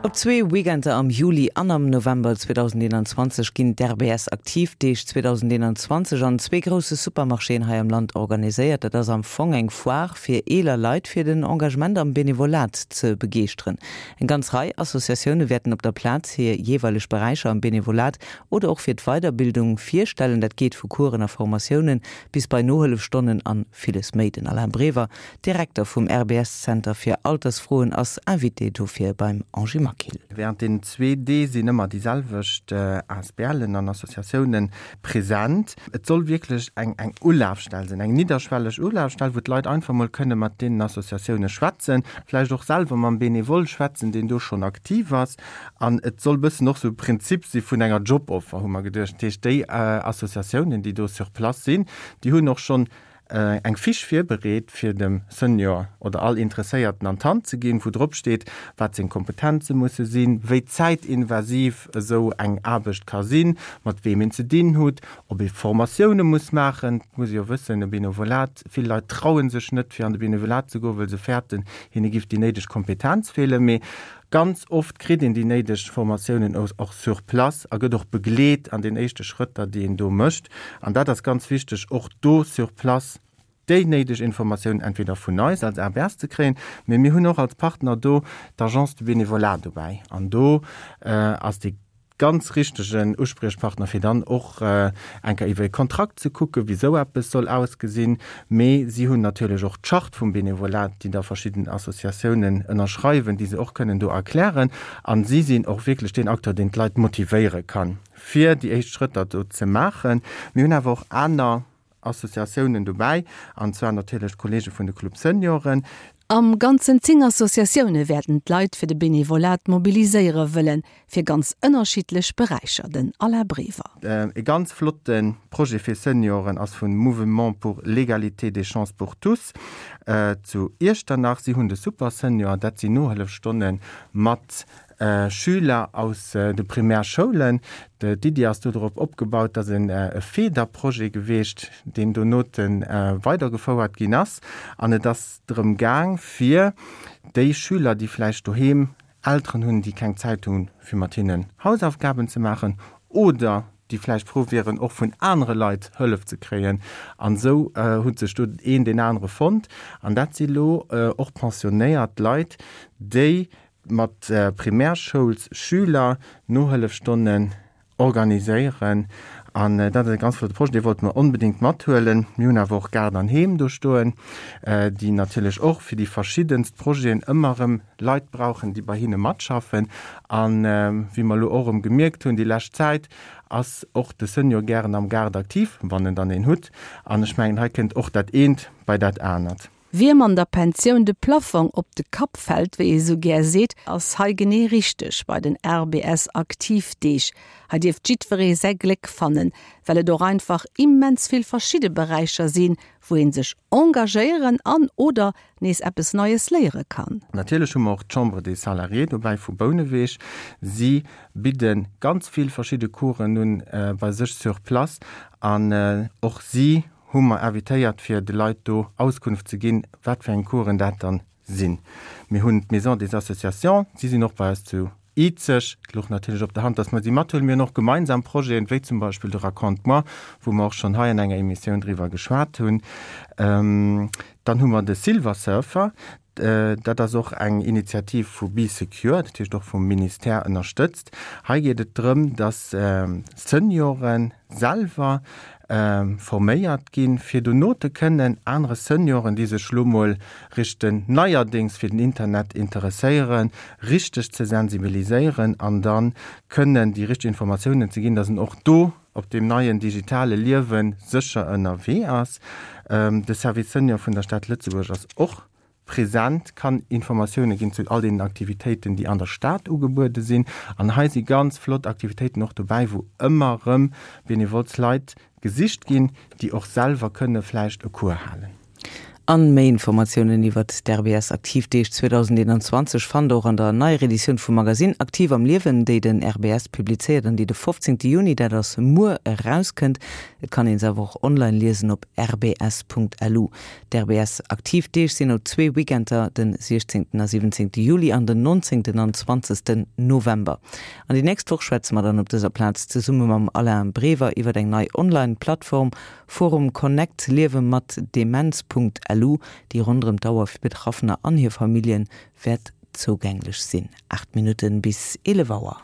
Op zwee Weekender am Juli an am November 2021 ginn d'RBS Aktivdeeg 2021 an zwee grousse Supermarchéen hei am Land organiséiert. Dat ass am Fong eng Foire fir eeler Leit fir den Engagement am Benevolat ze begeeschteren. Eng ganz Rei Associatioune wäerten op der Plaz hir jeeweileg Beräicher am Benevolat oder och fir d'Weiderbildung virstellen. Dat geet vu Coursen a Formatiounen bis bei Nohëllefstonnen an villes méi. Den Alain Brever, Direkter vum RBS-Zenter fir Altersfroen, ass Invité dofir beim Angie Maquil. Während deenen zwee Dee sinn ëmmer déi selwecht ASBLen an Associatiounen present. Et soll wierklech eng eng Ulafstell sinn, eng nidderschwelleg Ulafstell, wou d'Leit einfach mol kënne mat deenen Associatioune schwätzen, vläicht och selwer mam Benevole schwätzen, deen do schonn aktiv ass. An et soll bëssen och sou e Prinzip si vun enger Joboffer, hu mer geduecht. Dat heescht, déi Associatiounen, déi do sur place sinn, déi hunn och schonn eng Fiche virbereet, fir dem Senior oder all Interesséierten an d'Hand ze ginn, wou drop steet, wat seng Kompetenze musse sinn, wéi zäitinvasiv esou eng Aarbecht ka sinn, mat weem een ze dinn hutt, ob ee Formatioune muss maachen. Et muss ee jo wëssen, e Benevolat, vill Leit traue sech net, fir an de Benevolat ze goen, wëll se fäerten, hinne giff déi néideg Kompetenz feelen. Mee Ganz oft kritt een déi néideg Formatiounen och sur place a gëtt och begleet an den éischte Schrëtter, déi een do mécht. An dat ass ganz wichteg, och do sur place déi néideg Informatiounen entweder vun eis als ABS ze kréien, mee mir hunn och als Partner do d'Agence du Bénévolat dobäi. An do ass dee ganz richtegen Uspriechpartner, fir dann och eng Kéier iwwer e Kontrakt ze kucken, wéi esou eppes soll ausgesinn. Mee si hunn natierlech och d'Charte vum Benevolat, déi da verschidden Associatiounen ënnerschreiwen, déi se och kënnen do erklären. A si sinn och wierklech deen Acteur, deen d'Leit motivéiere kann, fir déi éischt Schrëtter do ze maachen. Mir hunn awer och aner Associatiounen dobäi, an zwar natierlech d'Kollege vun de Club Senioren. Am Ganzen 10 Associatioune wäerten d'Leit fir de Benevolat mobiliséiere wëllen, fir ganz ënnerschiddlech Beräicher. Den Alain Brever. E ganz flotte Projet fir Senioren ass vun Mouvement pour l'égalité des chances pour tous zu Iechternach. Si hunn de Super Senior, dat sinn Nohëllefstonne mat Schüler aus de Primärschoulen. D'Iddi ass do drop opgebaut, dass en e Feederprojet geweecht, deen donote weidergefouert ginn ass. An et ass drëm gaang, fir déi Schüler, déi vläicht doheem Elteren hunn, déi keng Zäit hunn, fir mat hinnen Hausaufgaben ze maachen oder déi vläicht frou wieren, och vun anere Leit Hëllef ze kréien. An esou huet sech do een deen anere fonnt. An dat si lo och pensionéiert Leit, déi mat Primärschoulsschüler Nohëllefstonnen organiséieren an dat ass e ganz flotte Projet, dee wollte mer onbedéngt mathuelen. Mir hunn awer och Gaart an Heem do stoen, déi natierlech och fir déi verschiddenst Projeten ëmmer erëm Leit brauchen, déi bei hinne matschaffen. An wéi mer elo och erëm gemierkt hunn déi lescht Zäit, ass och de Senior gären am Gaart aktiv, wann en dann een hutt. An ech mengen, hei kënnt och dat eent bei dat anert. Wiem an der Pensioun de Plafong op de Kapp fält, wéi ee sou gär seet, ass hei genee richteg bei den RBS Aktivdeeg. Hei dierft jiddweree säi Gléck fannen, well et och einfach immens vill verschidde Beräicher sinn, wou ee sech engagéieren an oder nees eppes Neies léiere kann. Natierlech hu mer och d'Chambre des Salariés dobäi vu Bouneweg. Si bidde ganz vill verschidde Coursen un bei sech sur place an och si hu mer invitéiert fir de Leit do Auskunft ze ginn, wat fir eng Coursen dat dann sinn. Mir hunn d'Maison des Associations, si sinn och bei eis zu Izeg. Et louch natierlech op der Hand, dass mer si mathuelen. Mir hunn och gemeinsam Projeten, wéi zum Beispill de Raconte-moi, wou mer och schonn hei an enger Emissioun driwwer geschwat hunn. Dann hu mer de Silver Surfer, Dat ass och eng Initiativ vu Bee Secure, dat heescht och vum Ministère ënnerstëtzt. Hei geet et drëm, dass Seniore selwer forméiert ginn, fir dono te kënnen anere Senioren, déi sech elo mol richte neierdéngs fir den Internet interesséieren, richteg ze sensibiliséieren an da kënnen déi richteg Informatiounen ze ginn, dass en och do op deem neien digitale Liewe sécher ënnerwee ass. De Service Senior vun der Stad Lëtzebuerg ass och present, kann Informatioune ginn zu all deenen Aktivitéiten, déi an der Stad ugebuede sinn. An hei si ganz flott Aktivitéiten och dobäi, wou ëmmer erëm benevols Leit gesicht ginn, déi och selwer kënne vläicht e Cours halen. An méi Informatiounen iwwert d'RBS Aktivdeeg 2021 fannt der och an der neier Editioun vum Magasinn Aktiv am Liewen, déi den RBS publizéiert an déi de 15 Juni, dat ass muer, erauskënnt. Et kann een se awer och online liesen op rbs.lu. D'RBS Aktivdeeg sinn op zwee Weekender, den 16 a 17 Juli an den 19 an 20 November. An déi nächst Woch schwätze mer dann op dëser Plaz zesumme mam Alain Brever iwwert eng nei Online-Plattform, Forum Connect Liewe mat Demenz.lu, déi ronderëm d'Auer fir Betraffener an hir Famillje wäert zougänglech sinn. 8 Minutten bis 11 Auer.